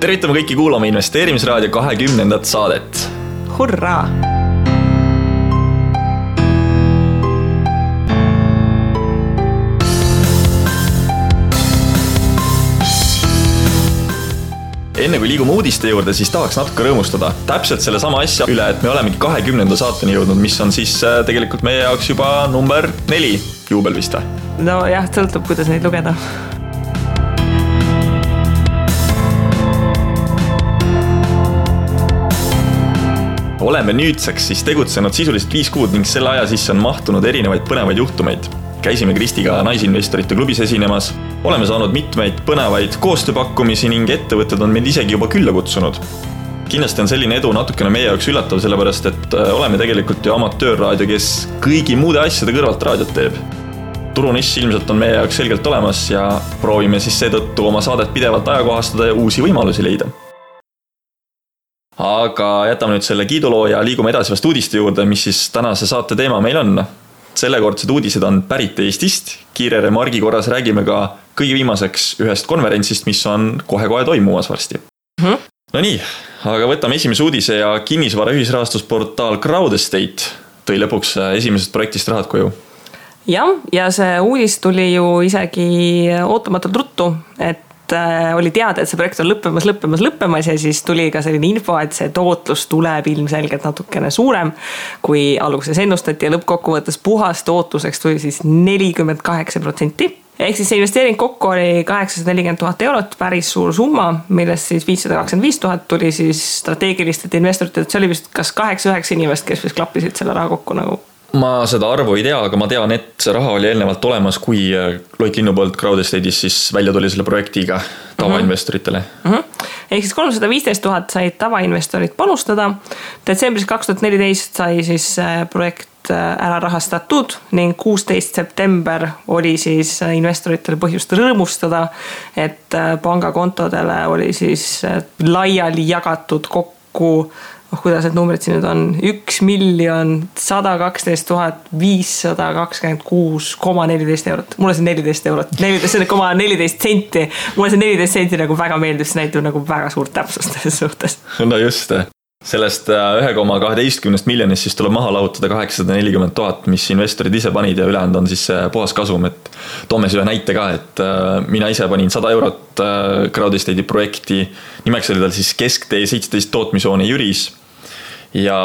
Tervitame kõiki kuulama Investeerimisraadio 20. saadet. Hurraa! Enne kui liigume uudiste juurde, siis tahaks natuke rõõmustada. Täpselt selle sama asja üle, et me olemegi 20. saateni jõudnud, mis on siis tegelikult meie jaoks juba number 4 juubel vist. No jah, sõltub, kuidas neid lugeda. Oleme nüüdseks siis tegutsenud sisuliselt 5 kuud ning selle aja sisse on mahtunud erinevaid põnevaid juhtumeid. Käisime Kristiga naisinvestorite klubis esinemas, oleme saanud mitmeid põnevaid koostööpakkumisi ning ettevõtted on meid isegi juba külla kutsunud. Kindlasti on selline edu natukene meie jaoks üllatav, sellepärast et oleme tegelikult ju amatöörraadio, kes kõigi muude asjade kõrvalt raadiot teeb. Turuniss ilmselt on meie jaoks selgelt olemas ja proovime siis seetõttu oma saadet pidevalt ajakohastada ja uusi võimalusi leida. Aga jätame nüüd selle kiiduloo ja liigume edasi vast uudiste juurde, mis siis tänase saate teema meil on. Sellekordsed uudised on pärit Eestist. Kiire remargi korras räägime ka kõige viimaseks ühest konverentsist, mis on kohe-kohe toimumas varsti. No nii, aga võtame esimese uudise ja kinnisvara ühisrahastusportaal Crowdestate tõi lõpuks esimesest projektist rahad koju. Ja see uudis tuli ju isegi ootamatult ruttu, et oli teada, et see projekt on lõppemas ja siis tuli ka selline info, et see tootlus tuleb ilmselgelt natukene suurem, kui alguses ennustati ja lõppkokkuvõttes puhas tootluseks tuli siis 48%. Ehk siis see investeering kokku oli 840 000 eurot, päris suur summa, millest siis 525 000 tuli siis strateegilistelt investoritelt. See oli vist kas 8-9 inimest, kes vist klappisid selle raha kokku nagu. Ma seda arvu ei tea, aga ma tean, et see raha oli eelnevalt olemas, kui Loit Linnu poolt Crowdestate'is siis välja tuli selle projektiga tavainvestoritele. Ehk siis 315 000 said tavainvestorid panustada. Detsembris 2014 sai siis projekt ära rahastatud ning 16. september oli siis investoritel põhjust rõõmustada, et pangakontodele oli siis laiali jagatud kokku kuidas need numbrid siin nüüd on 1 112 526,14 eurot. Mulle see 14 eurot, 14,14 senti. Mulle see 14 senti nagu väga meeldib, see näitab nagu väga suurt täpsust selles suhtes. No just, sellest 1,12 miljonist siis tuleb maha lahutada 840 000, mis investorid ise panid ja ülejäänud on siis puhas kasum. Et toome ühe näite ka, et mina ise panin 100 eurot Crowdestate'i projekti, nimeks oli tal siis Kesktee 17 tootmishoone Jüris. Ja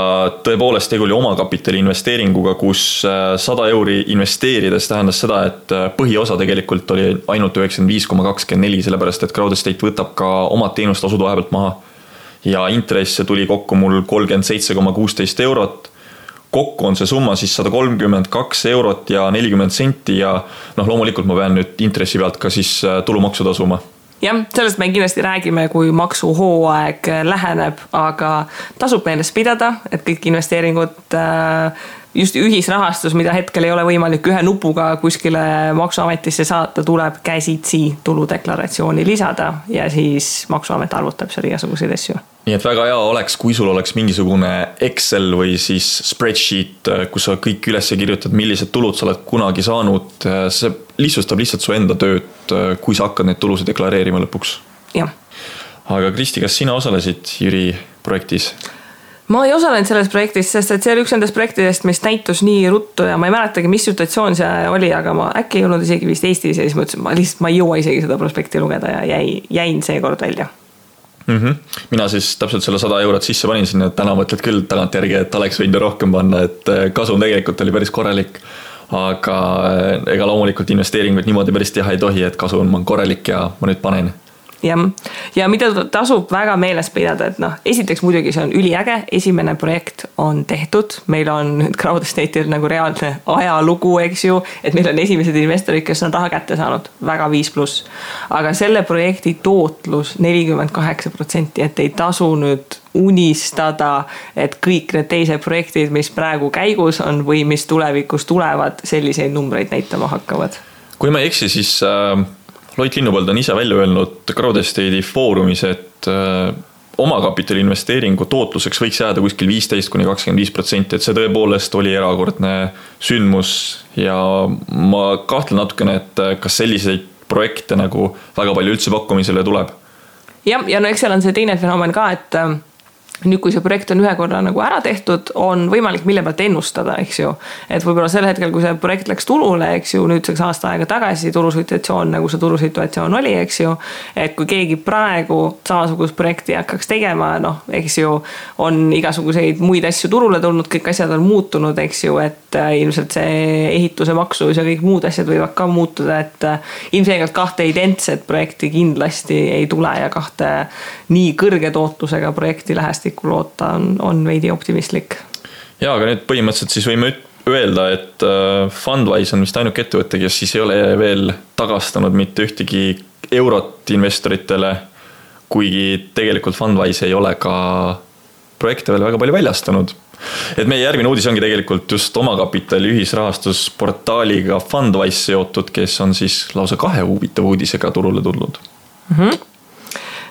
tõepoolest tegu oli omakapitali investeeringuga, kus 100 euri investeerides tähendas seda, et põhiosa tegelikult oli ainult 95,24, sellepärast et Crowdestate võtab ka omad teenustasud vahepealt maha. Ja intresse tuli kokku mul 37,16 eurot. Kokku on see summa siis 132 eurot ja 40 senti ja loomulikult ma pean nüüd intressi pealt ka siis tulumaksu tasuma. Jah, sellest me kindlasti räägime, kui maksuhooaeg läheneb, aga tasub meeles pidada, et kõik investeeringud, just ühisrahastus, mida hetkel ei ole võimalik ühe nupuga kuskile maksuametisse saata, tuleb käsitsi tuludeklaratsiooni lisada ja siis maksuamet arvutab seal igasuguseid asju. Nii et väga hea oleks, kui sul oleks mingisugune Excel või siis spreadsheet, kus sa kõik üles kirjutad, millised tulud sa oled kunagi saanud. See lihtsustab lihtsalt su enda tööd, kui sa hakkad neid tulusid deklareerima lõpuks. Jah. Aga Kristi, kas sina osalesid Jüri projektis? Ma ei osalenud selles projektis, sest et see oli üks nendest projektidest, mis näitus nii ruttu ja ma ei mäletagi, mis situatsioon see oli, aga ma äkki ei olnud isegi vist Eestis ja siis mõtlesin, ma ei jõua isegi seda prospekti lugeda ja jäin seekord välja. Mina siis täpselt selle 100 eurot sisse panin sinna, et täna mõtled küll tagant järgi, et oleks võinud rohkem panna, et kasum tegelikult oli päris korralik, aga ega loomulikult investeeringuid niimoodi päris teha ei tohi, et kasum on korralik ja ma nüüd panen. Ja mida tasub väga meeles pidada, et esiteks muidugi see on üliäge, esimene projekt on tehtud, meil on nüüd Crowdestate'il nagu reaalne ajalugu, eks ju, et meil on esimesed investorid, kes on raha kätte saanud, väga 5+. Aga selle projekti tootlus 48%, et ei tasu nüüd unistada, et kõik need teised projektid, mis praegu käigus on või mis tulevikus tulevad, selliseid numbreid näitama hakkavad. Kui ma ei eksi, siis Loit Linnu poolt on ise välja öelnud Crowdestate'i foorumis, et omakapitali investeeringu tootluseks võiks jääda kuskil 15-25%, et see tõepoolest oli erakordne sündmus ja ma kahtlen natukene, et kas selliseid projekte nagu väga palju üldse pakkumisele tuleb. ja no eks seal on see teine fenomen ka, et nüüd, kui see projekt on ühe korra nagu ära tehtud, on võimalik mille pealt ennustada, eks ju. Et võib-olla sel hetkel, kui see projekt läks turule, eks ju, nüüdseks aasta aega tagasi turusituatsioon, nagu see turusituatsioon oli, eks ju. Et kui keegi praegu samasugust projekti hakkaks tegema, noh, eks ju, on igasuguseid muid asju turule tulnud, kõik asjad on muutunud, eks ju, et ilmselt see ehituse maksus ja kõik muud asjad võivad ka muutuda, et ilmselgelt kahte identset projekti kindlasti ei tule ja kahte nii kõrge tootlusega projekti lähest loota on veidi optimistlik. Ja, aga nüüd põhimõtteliselt siis võime öelda, et Fundwise on vist ainuke ettevõte, kes siis ei ole veel tagastanud mitte ühtegi eurot investoritele, kuigi tegelikult Fundwise ei ole ka projekte veel väga palju väljastanud. Et meie järgmine uudis ongi tegelikult just omakapitali ühisrahastusportaaliga Fundwise seotud, kes on siis lausa 2 huvitava uudisega turule tulnud.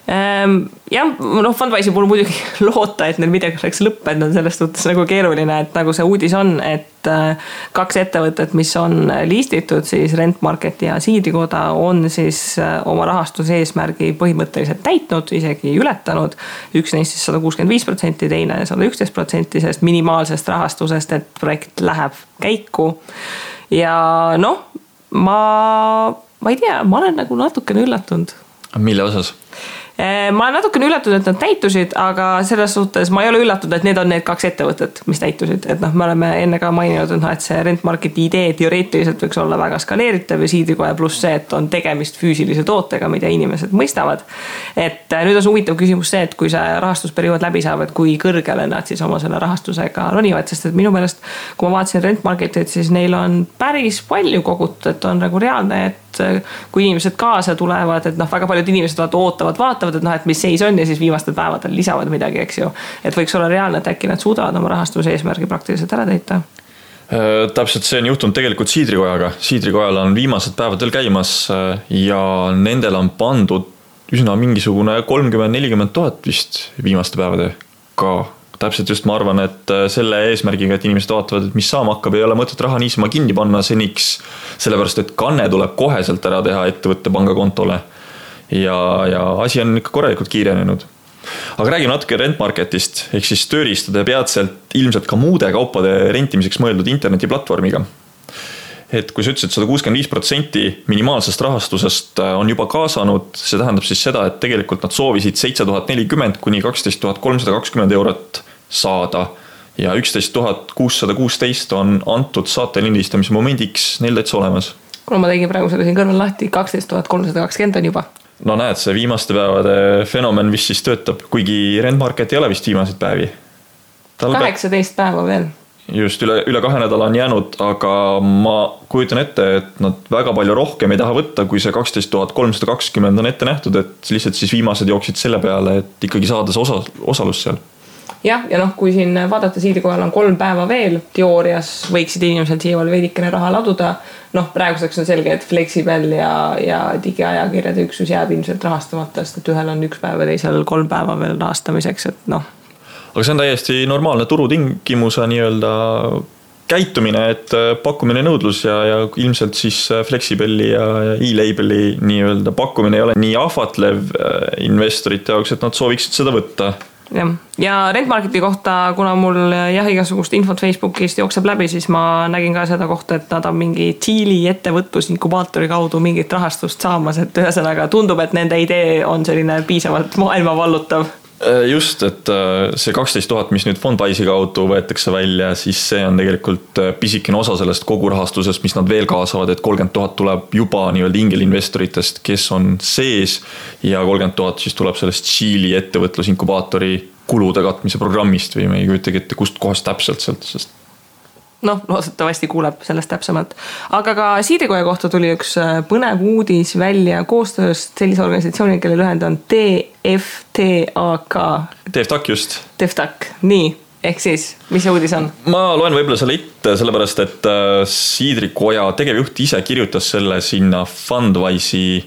Jah, noh, Fundwise'i puhul muidugi loota, et neil midagi oleks lõppenud, on selles suhtes nagu keeruline, et nagu see uudis on, et 2 ettevõtet, mis on listitud, siis Rentmarket ja Siidrikoda on siis oma rahastuse eesmärgi põhimõtteliselt täitnud, isegi ületanud. Üks neist siis 165%, teine 111% sellest minimaalsest rahastusest, et projekt läheb käiku. Ja noh, ma ei tea, ma olen nagu natukene üllatunud. Mille osas? Ma olen natukene üllatunud, et nad täitusid, aga selles suhtes ma ei ole üllatunud, et need on need 2 ettevõtet, mis täitusid. Et noh, me oleme enne ka maininud, et see Rentmarketi idee teoreetiliselt võiks olla väga skaleeritav ja Siidrikoja pluss see, et on tegemist füüsilise tootega, mida inimesed mõistavad. Et nüüd on huvitav küsimus see, et kui see rahastusperiood läbi saab, et kui kõrgele nad siis oma selle rahastusega ronivad, sest et minu meelest, kui ma vaatasin Rentmarketit, siis neil on päris palju kogutud, et on nagu reaalne, et kui inimesed kaasa tulevad, et noh, väga paljud inimesed vaatavad, et noh, et mis seis on ja siis viimastel päevadel lisavad midagi, eks ju. Et võiks olla reaalne, et äkki nad suudavad oma rahastuse eesmärgi praktiliselt ära täita. Täpselt see on juhtunud tegelikult Siidrikojaga. Siidrikojal on viimased päevadel käimas ja nendel on pandud üsna mingisugune 30-40 000 vist viimaste päevade ka. Täpselt just ma arvan, et selle eesmärgiga, et inimesed vaatavad, et mis saama hakkab, ei ole mõtet raha niisama kinni panna seniks, sellepärast et kanne tuleb koheselt ära teha ettevõtte pangakontole ja asi on ikka korralikult kiirenenud. Aga räägime natuke Rentmarketist, ehk siis tööriistade peatselt ilmselt ka muude kaupade rentimiseks mõeldud internetiplatvormiga. Et kui sa ütlesid, 165% minimaalsest rahastusest on juba kaasanud, see tähendab siis seda, et tegelikult nad soovisid 7040 kuni 12320 eurot saada ja 11616 on antud saate lindistamise momendiks neil täitsa olemas. Kuna ma tegin praegu selle siin kõrval lahti, 12320 on juba. No näed, see viimaste päevade fenomen, mis siis töötab, kuigi Rentmarket ei ole vist viimaseid päevi. 18 päeva veel. Just üle 2 nädala on jäänud, aga ma kujutan ette, et nad väga palju rohkem ei taha võtta, kui see 12320 on ette nähtud, et lihtsalt siis viimased jooksid selle peale, et ikkagi saada see osalus seal. Jah, ja noh, kui siin vaadata Siidrikojal on 3 päeva veel, teoorias võiksid inimesed siia veel veidikene raha laduda. Noh, praeguseks on selge, et Flexibel ja digiajakirjade üksus jääb ilmselt rahastamata, sest et ühel on 1 päev ja teisel 3 päeva veel rahastamiseks, et noh. Aga see on täiesti normaalne turutingimuse nii-öelda käitumine, et pakkumine nõudlus ja ilmselt siis Flexibeli ja e-labeli nii-öelda pakkumine ei ole nii ahvatlev investorite jaoks, et nad sooviksid seda võtta. Ja Rentmarketi kohta, kuna mul igasugust infot Facebookist jookseb läbi, siis ma nägin ka seda kohta, et nad on mingi Tšiili ettevõtlusinkubaatori kaudu mingit rahastust saamas, et ühesõnaga tundub, et nende idee on selline piisavalt maailma vallutav. Just, et see 12 000, mis nüüd Fundwise'i kaudu võetakse välja, siis see on tegelikult pisikene osa sellest kogu rahastusest, mis nad veel kaasavad, et 30 000 tuleb juba nii-öelda ingelinvestoritest, kes on sees ja 30 000 siis tuleb sellest Tšiili ettevõtlusinkubaatori kulude katmise programmist või me ei kujutagi ette, kust kohast täpselt sealt, sest noh, loodetavasti kuuleb sellest täpsemalt. Aga ka Siidrikoja kohta tuli üks põnev uudis välja koostööst sellise organisatsiooni, kelle lühend on TFTAK. TFTAK just. TFTAK, nii. Ehk siis, mis see uudis on? Ma loen võib-olla selle ette, sellepärast et Siidrikoja tegevjuht ise kirjutas selle sinna Fundwise'i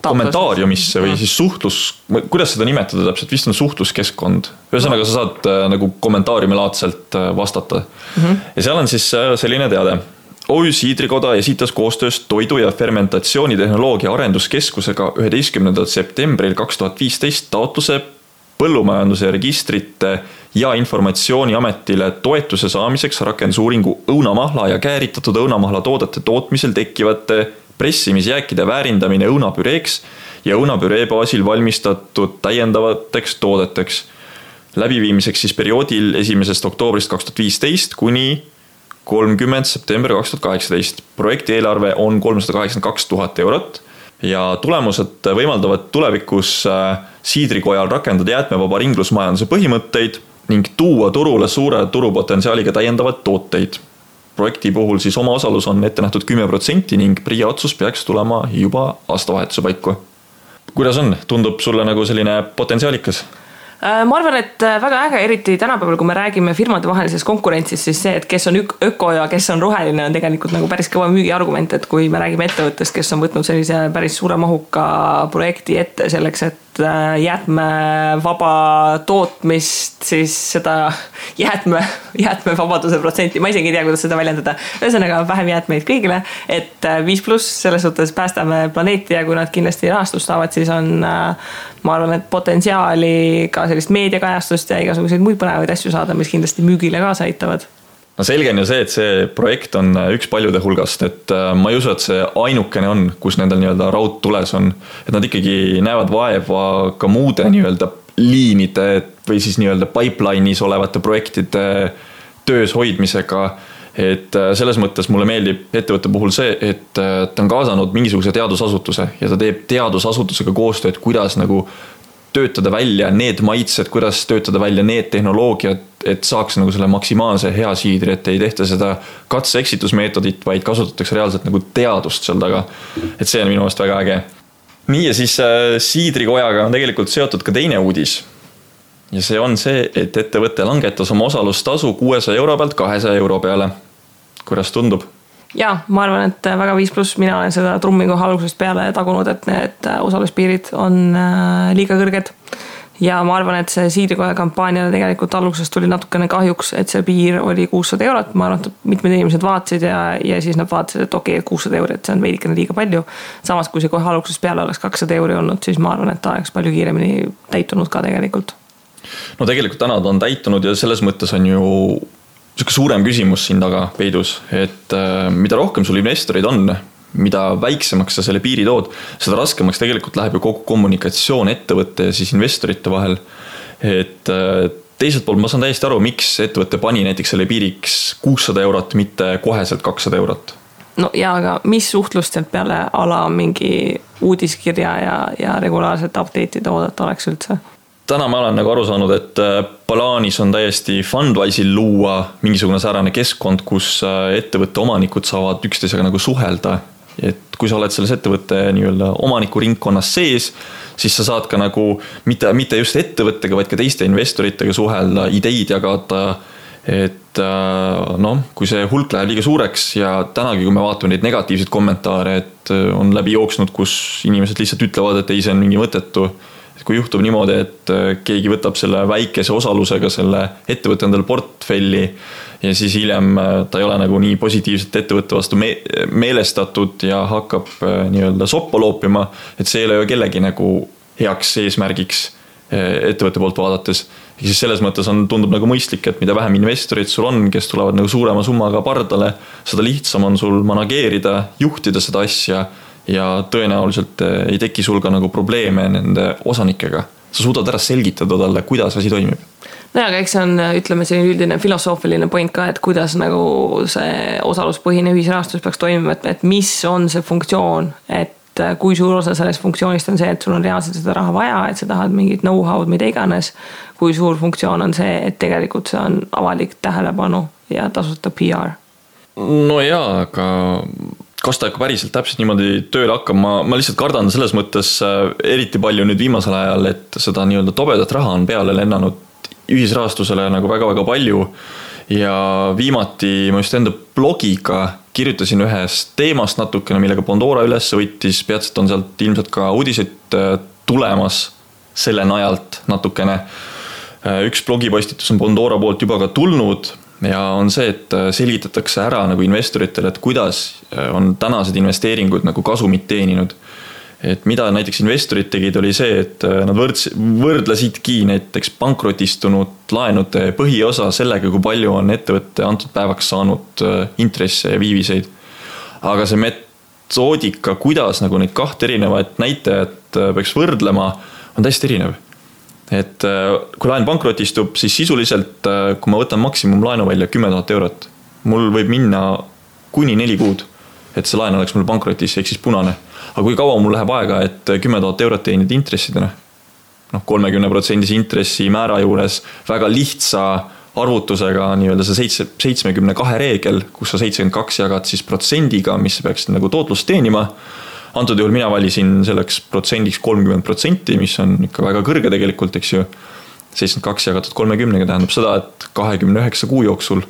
kommentaariumisse või siis suhtlus, kuidas seda nimetada täpselt, vist on suhtluskeskkond. Ühesõnaga sa saad nagu kommentaariumilaadselt vastata. Ja seal on siis selline teade, OÜ Siidrikoda esitas koostöös Toidu- ja fermentatsioonitehnoloogia arenduskeskusega 11. septembril 2015 taotluse põllumajanduse registrite ja informatsiooniametile toetuse saamiseks rakendusuuringu õunamahla ja kääritatud õunamahla toodete tootmisel tekkivate pressimisjääkide väärindamine õunapüreeks ja õunapüree baasil valmistatud täiendavateks toodeteks. Läbiviimiseks siis perioodil 1. oktoobrist 2015 kuni 30. september 2018. Projekti eelarve on 382 000 eurot ja tulemused võimaldavad tulevikus Siidrikojal rakendada jäätmevaba ringlusmajanduse põhimõtteid ning tuua turule suure turupotentsiaaliga täiendavad tooteid. Projekti puhul siis oma osalus on ette nähtud 10% ning PRIA otsus peaks tulema juba aastavahetuse paiku. Kuidas on? Tundub sulle nagu selline potentsiaalikas? Ma arvan, et väga äge, eriti tänapäeval, kui me räägime firmade vahelisest konkurentsist, siis see, et kes on öko ja kes on roheline, on tegelikult nagu päris kõva müügiargument, et kui me räägime ettevõttest, kes on võtnud sellise päris suure mahuka projekti ette selleks, et jäätmevaba tootmist, siis seda jäätmevabaduse protsenti, ma isegi ei tea, kuidas seda väljendada, ühesõnaga vähem jäätmeid kõigile, et 5+ selles suhtes päästame planeeti ja kui nad kindlasti rahastust saavad, siis on, ma arvan, et potentsiaali ka sellist meediakajastust ja igasuguseid muid põnevaid asju saada, mis kindlasti müügile kaasa aitavad. No selge on ju see, et see projekt on üks paljude hulgast, et ma ei usu, et see ainukene on, kus nendel nii-öelda raud tules on, et nad ikkagi näevad vaeva ka muude nii-öelda liinide või siis nii-öelda pipeline'is olevate projektide töös hoidmisega, et selles mõttes mulle meeldib ettevõtte puhul see, et ta on kaasanud mingisuguse teadusasutuse ja ta teeb teadusasutusega koostööd, kuidas nagu töötada välja need maitsed, kuidas töötada välja need tehnoloogiad, et saaks nagu selle maksimaalse hea siidri, et ei tehta seda katse-eksitusmeetodit, vaid kasutatakse reaalselt nagu teadust seal taga. Et see on minu meelest väga äge. Nii ja siis Siidrikojaga on tegelikult seotud ka teine uudis. Ja see on see, et ettevõte langetas oma osalustasu 600 euro pealt 200 euro peale. Kuidas tundub? Ja, ma arvan, et väga 5+, mina olen seda trummi koha algusest peale tagunud, et need osaluspiirid on liiga kõrged. Ja ma arvan, et see Siidrikoja kampaaniale tegelikult algusest tuli natukene kahjuks, et see piir oli 600 eurot. Ma arvan, et mitmed inimesed vaatasid ja siis nad vaatasid, et okei, 600 eurot, see on veidikene liiga palju. Samas, kui see kohe algusest peale oleks 200 euro olnud, siis ma arvan, et ta oleks palju kiiremini täitunud ka tegelikult. No tegelikult täna ta on täitunud ja selles mõttes on ju suurem küsimus siin taga peidus, et mida rohkem sul investorid on, mida väiksemaks sa selle piiri tood, seda raskemaks tegelikult läheb ju kogu kommunikatsioon ettevõtte ja siis investorite vahel. Et teiselt poolt ma saan täiesti aru, miks ettevõtte pani näiteks selle piiriks 600 eurot, mitte koheselt 200 eurot. No ja aga mis suhtlust sealt peale ala mingi uudiskirja ja regulaarselt update'ide oodata oleks üldse? Täna ma olen nagu aru saanud, et plaanis on täiesti Fundwise'il luua mingisugune säärane keskkond, kus ettevõtte omanikud saavad üksteisega nagu suhelda. Et kui sa oled selles ettevõtte nii-öelda omaniku ringkonnas sees, siis sa saad ka nagu mitte just ettevõttega, vaid ka teiste investoritega suhelda, ideid jagada. Et kui see hulk läheb liiga suureks ja tänagi, kui me vaatame neid negatiivseid kommentaare, et on läbi jooksnud, kus inimesed lihtsalt ütlevad, et ei, see on mingi mõttetu. Kui juhtub niimoodi, et keegi võtab selle väikese osalusega selle ettevõtte endale portfelli ja siis hiljem ta ei ole nagu nii positiivselt ettevõtte vastu meelestatud ja hakkab nii-öelda soppa loopima, et see ei ole ju kellegi nagu heaks eesmärgiks ettevõtte poolt vaadates. Ja siis selles mõttes tundub nagu mõistlik, et mida vähem investorid sul on, kes tulevad nagu suurema summaga pardale, seda lihtsam on sul manageerida, juhtida seda asja ja tõenäoliselt ei teki sul ka nagu probleeme nende osanikega. Sa suudad ära selgitada talle, kuidas asi toimib. No ja, aga eks see on, ütleme, selline üldine filosoofiline point ka, et kuidas nagu see osaluspõhine ühisrahastus peaks toimima, et mis on see funktsioon, et kui suur osa sellest funktsioonist on see, et sul on reaalselt seda raha vaja, et sa tahad mingit know-how'd, mida iganes, kui suur funktsioon on see, et tegelikult see on avalik tähelepanu ja tasuta PR. No jaa, aga kas ta päriselt täpselt niimoodi tööle hakkab, ma lihtsalt kardan selles mõttes eriti palju nüüd viimasel ajal, et seda nii-öelda tobedat raha on peale lennanud ühisrahastusele nagu väga-väga palju ja viimati ma just enda blogiga kirjutasin ühest teemast natukene, millega Pandora üles võttis, peatselt on sealt ilmselt ka uudised tulemas selle najalt natukene. Üks blogipostitus on Pandora poolt juba ka tulnud ja on see, et selgitatakse ära nagu investoritele, et kuidas on tänased investeeringud nagu kasumit teeninud. Et mida näiteks investorid tegid, oli see, et nad võrdlesidki näiteks pankrotistunud laenude põhiosa sellega, kui palju on ettevõtte antud päevaks saanud intresse ja viiviseid. Aga see metoodika, kuidas nagu neid kahte erinevat näitajat peaks võrdlema, on täiesti erinev. Et kui laen pankrotistub, siis sisuliselt, kui ma võtan maksimum laenu välja 10 000 eurot, mul võib minna kuni 4 kuud, et see laen oleks mul pankrotis, ehk siis punane. Aga kui kaua mul läheb aega, et 10 000 eurot teenid intressidena? 30% intressi määra juures väga lihtsa arvutusega nii-öelda see 72 reegel, kus sa 72 jagad siis protsendiga, mis peaks nagu tootlust teenima. Antud juhul mina valisin selleks protsendiks 30%, mis on ikka väga kõrge tegelikult, eks ju. 72 jagatud 30 tähendab seda, et 29 kuu jooksul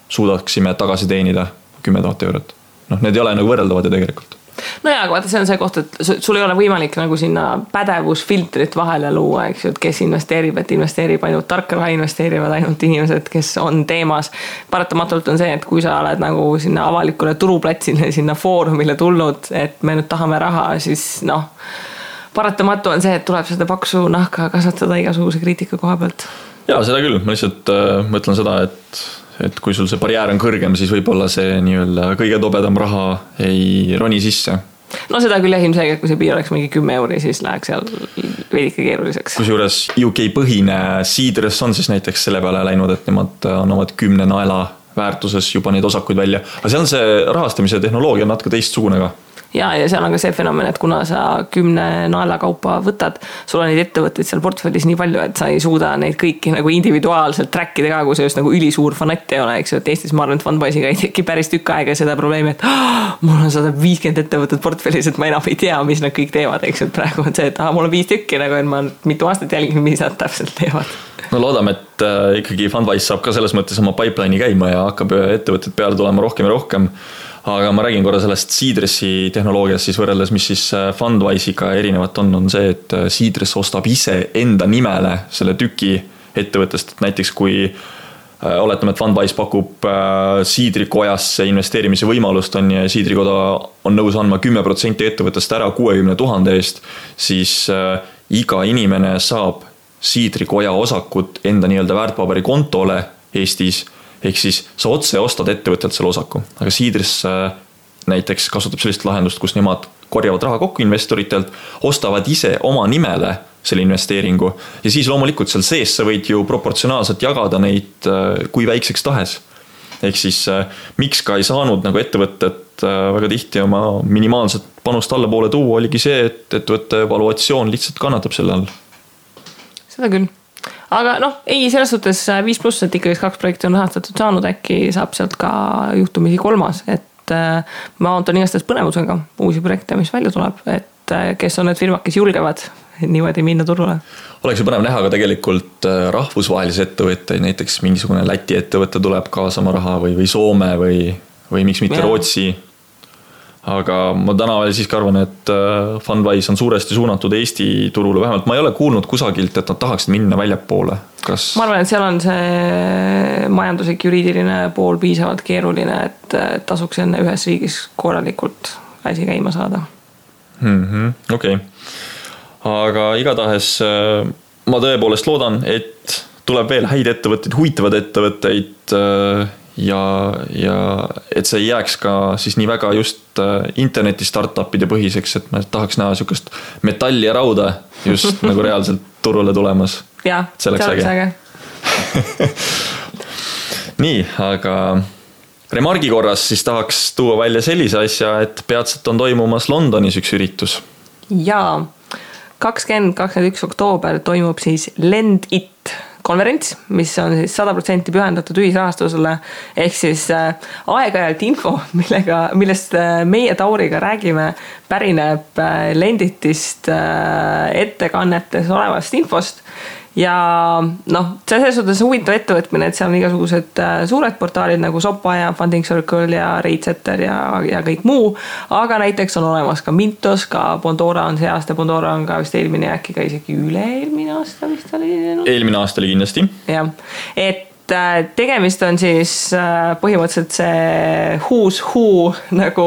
suudaksime tagasi teenida 10 000 eurot. Need ei ole nagu võrreldavad ja tegelikult. No jaa, aga vaata, see on see koht, et sul ei ole võimalik nagu sinna pädevusfiltrit vahele luua, eks ju, et kes investeerib, et investeerib ainult tarka, investeerivad ainult inimesed, kes on teemas. Paratamatult on see, et kui sa oled nagu sinna avalikule turuplatsile, sinna foorumile tulnud, et me nüüd tahame raha, siis paratamatu on see, et tuleb seda paksu nahka kasvatada igasuguse kriitika koha pealt. Jaa, seda küll. Ma lihtsalt mõtlen seda, et kui sul see barjäär on kõrgem, siis võib-olla see nii-öelda kõige tobedam raha ei roni sisse. No seda küll ilmselgelt, kui see piir oleks mingi 10 euri, siis läheks seal veidike keeruliseks. Kusjuures UK põhine Seedress on siis näiteks selle peale läinud, et nemad annavad 10 naela väärtuses juba neid osakuid välja. Aga seal on see rahastamise tehnoloogia on natuke teistsugune ka. Ja seal on ka see fenomen, et kuna sa 10 naela kaupa võtad, sul on neid ettevõtteid seal portfellis nii palju, et sa ei suuda neid kõiki nagu individuaalselt trackida ka, kui see just nagu ülisuur fanatt ei ole, eks ju, et Eestis ma arvan, et Fundwise'iga ei teki päris tükk aega seda probleemi, et mul on 150 ettevõtted portfellis, et ma enam ei tea, mis nad kõik teevad, eks ju, et praegu on see, et mul on 5 tükki, nagu et ma mitu aastat jälgin, mis nad täpselt teevad. No loodame, et ikkagi Fundwise saab ka selles mõttes oma pipeline'i käima ja hakkab ettevõtted peale tulema rohkem ja rohkem. Aga ma räägin korra sellest Seedressi tehnoloogias siis võrreldes, mis siis Fundwise'iga erinevat on see, et Seedress ostab ise enda nimele selle tüki ettevõttest, et näiteks kui oletame, et Fundwise pakub Seedrikojasse investeerimise võimalust on ja Seedrikoda on nõus andma 10% ettevõttest ära 60 000 eest, siis iga inimene saab Seedrikoja osakut enda nii-öelda väärtpaberi kontole Eestis. Ehk siis sa otse ostad ettevõttelt selle osaku, aga Seedress näiteks kasutab sellist lahendust, kus nemad korjavad raha kokku investoritelt, ostavad ise oma nimele selle investeeringu ja siis loomulikult seal sees sa võid ju proportsionaalselt jagada neid kui väikseks tahes. Ehk siis miks ka ei saanud nagu ettevõtted väga tihti oma minimaalset panust allapoole tuua, oligi see, et ettevõtte valuatsioon lihtsalt kannatab selle all. Seda küll. Aga ei, selles suhtes 5+, et ikkagi 2 projekti on rahastatud saanud, äkki saab sealt ka juhtumisi 3, et ma ootan igastades põnevusega uusi projekte, mis välja tuleb, et kes on need firmad, kes julgevad niimoodi minna turule. Oleks ju põnev näha ka tegelikult rahvusvahelisi ettevõtteid, näiteks mingisugune Läti ettevõtte tuleb kaasama raha või Soome või miks mitte Rootsi. Aga ma täna veel siiski arvan, et Fundwise on suuresti suunatud Eesti turule. Vähemalt ma ei ole kuulnud kusagilt, et nad tahaksid minna väljapoole. Ma arvan, et seal on see majanduslik juriidiline pool piisavalt keeruline, et tasuks enne ühes riigis korralikult asi käima saada. Okei. Aga igatahes ma tõepoolest loodan, et tuleb veel häid ettevõtteid, huvitavad ettevõtteid ja et see ei jääks ka siis nii väga just interneti startupide põhiseks, et ma tahaks näha sükast metalli ja rauda just nagu reaalselt turule tulemas. Jaa, see oleks äge. Nii, aga remargi korras siis tahaks tuua välja sellise asja, et peatselt on toimumas Londonis üks üritus. Jaa, 20-21 oktoober toimub siis Lend It konverents, mis on siis 100% pühendatud ühisrahastusele, ehk siis aeg-ajalt info, millest meie Tauriga räägime, pärineb Lenditist ettekannetes olevast infost. Ja selles suhtes huvitav ettevõtmine, et seal on igasugused suured portaalid nagu Sopa ja Funding Circle ja Ratesetter ja kõik muu, aga näiteks on olemas ka Mintos, ka Bondora on see aasta, Bondora on ka vist eelmine äkki ka isegi üle-eelmine aasta vist oli. Eelmine aasta oli kindlasti. Jah, et tegemist on siis põhimõtteliselt see who's who nagu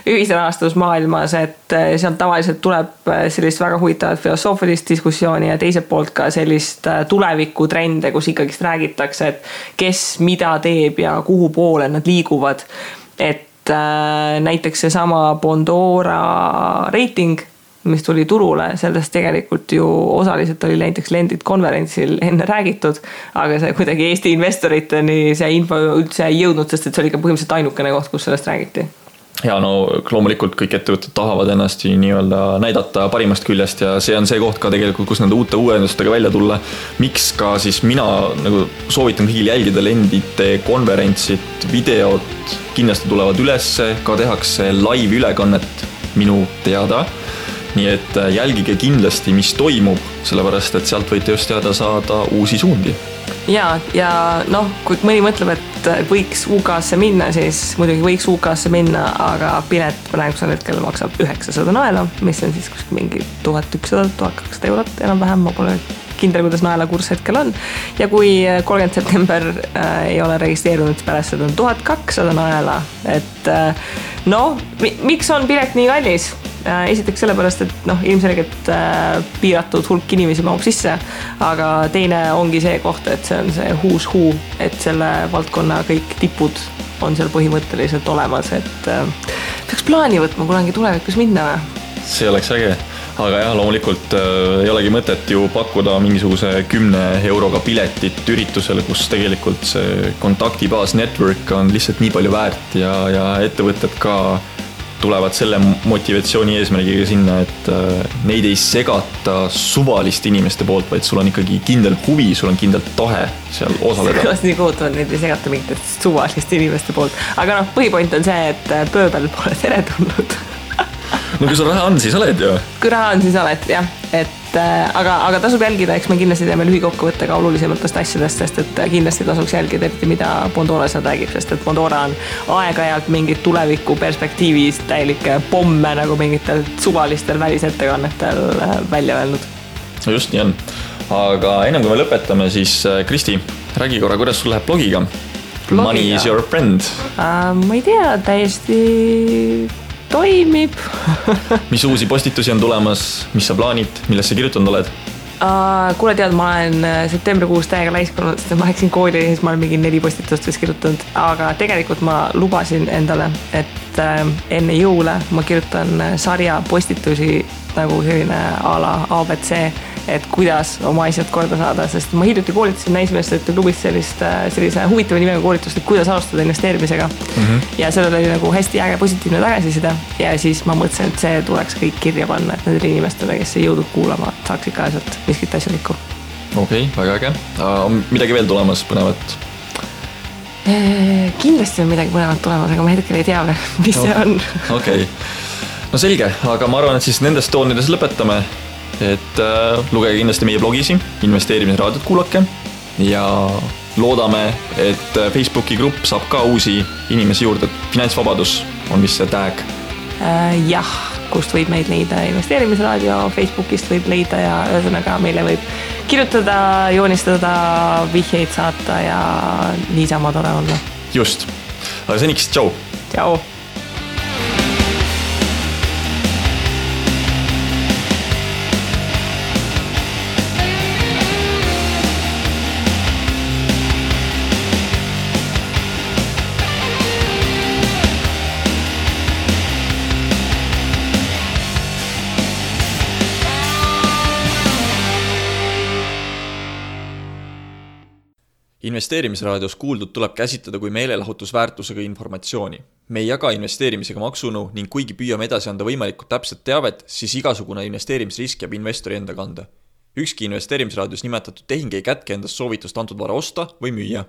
ühisrahastusmaailmas, et sealt tavaliselt tuleb sellist väga huvitavat filosoofilist diskussiooni ja teiselt poolt ka sellist tulevikutrende, kus ikkagist räägitakse, et kes mida teeb ja kuhu poole nad liiguvad. Et näiteks see sama Bondora reiting, mis tuli turule, sellest tegelikult ju osaliselt oli näiteks Lendit konverentsil enne räägitud, aga see kuidagi Eesti investoriteni see info üldse ei jõudnud, sest et see oli ka põhimõtteliselt ainukene koht, kus sellest räägiti. Ja no loomulikult kõik ettevõtted tahavad ennast nii-öelda näidata parimast küljest ja see on see koht ka tegelikult, kus nende uute uuendustega välja tulla. Miks ka siis mina nagu soovitan kõigil jälgida Lendite konverentsit, videod kindlasti tulevad ülesse, ka tehakse live ülekannet minu teada. Nii et jälgige kindlasti, mis toimub, sellepärast, et sealt võite just teada saada uusi suundi. Ja noh, kui mõni mõtleb, et võiks UK-sse minna, siis muidugi võiks UK-sse minna, aga pilet praegusel hetkel maksab 900 naela, mis on siis mingi 1100-1200 eurot enam-vähem, ma pole kindel, kuidas naela kurs hetkel on. Ja kui 30. september ei ole registreerunud, pärast seda on 1200 naela, et miks on pilet nii kallis? Esiteks sellepärast, et ilmselgelt piiratud hulk inimesi mahub sisse, aga teine ongi see koht, et see on see who's who, et selle valdkonna kõik tipud on seal põhimõtteliselt olemas, et peaks plaani võtma kunagi tulevikus minna või? See oleks äge, aga jah, loomulikult ei olegi mõtet ju pakkuda mingisuguse 10 euroga piletit üritusele, kus tegelikult see kontaktibaas network on lihtsalt nii palju väärt ja ettevõtted ka tulevad selle motivatsiooni eesmärgiga sinna, et neid ei segata suvaliste inimeste poolt, vaid sul on ikkagi kindel huvi, sul on kindel tahe seal osaleda. Kuidas nii kohutavad, neid ei segata mingitest suvaliste inimeste poolt. Aga põhipoint on see, et pööbel pole tere tulnud. No kui sul raha on, siis oled ju. Kui raha on, siis oled, jah. Aga tasub jälgida, eks me kindlasti teeme lühikokkuvõtte ka olulisematest asjadest, sest et kindlasti tasuks jälgida, eriti mida Bondora seal räägib, sest et Bondora on aeg-ajalt mingid tuleviku perspektiivis täielikke pomme nagu mingitel suvalistel välisettekannetel välja öelnud. No just nii on. Aga ennem kui me lõpetame, siis Kristi, räägi korra, kuidas sul läheb blogiga? Money is your friend. Ma ei tea, täiesti toimib. Mis uusi postitusi on tulemas, mis sa plaanid, millesse kirjutanud oled? Kuule tead, ma olen septembrikuus täiega laiskanud, sest ma läksin kooli ja siis ma olen mingi 4 postitust vist kirjutanud, aga tegelikult ma lubasin endale, et enne jõule ma kirjutan sarja postitusi nagu selline a la ABC, et kuidas oma asjad korda saada, sest ma hiljuti koolitasin naismeestrite klubis sellise huvitava nimega koolitust, et kuidas alustada investeerimisega. Ja sellel oli nagu hästi äge positiivne tagasiside ja siis ma mõtlesin, et see tuleks kõik kirja panna, et nendele inimestele, kes ei jõudnud kuulama, saaks ikka asjalt miskit asjalikku. Okei, väga äge. On midagi veel tulemas põnevat? Kindlasti on midagi põnevat tulemas, aga ma hetkel ei tea, mis see on. Okei. No selge, aga ma arvan, et siis nendest toonides lõpetame, et lugege kindlasti meie blogisi, investeerimisraadiot kuulake ja loodame, et Facebooki grupp saab ka uusi inimesi juurde. Finantsvabadus on vist see tag. Jah, kust võib meid leida investeerimisraadio, Facebookist võib leida ja ühesõnaga meile võib kirjutada, joonistada, vihjeid saata ja niisama tore olla. Just, aga seniks, tšau! Tšau! Investeerimisraadios kuuldud tuleb käsitleda kui meelelahutusväärtusega informatsiooni. Me ei jaga investeerimisega maksunu ning kuigi püüame edasi anda võimalikult täpset teavet, siis igasugune investeerimisrisk jääb investori enda kanda. Ükski investeerimisraadios nimetatud tehing ei kätke endast soovitust antud vara osta või müüa.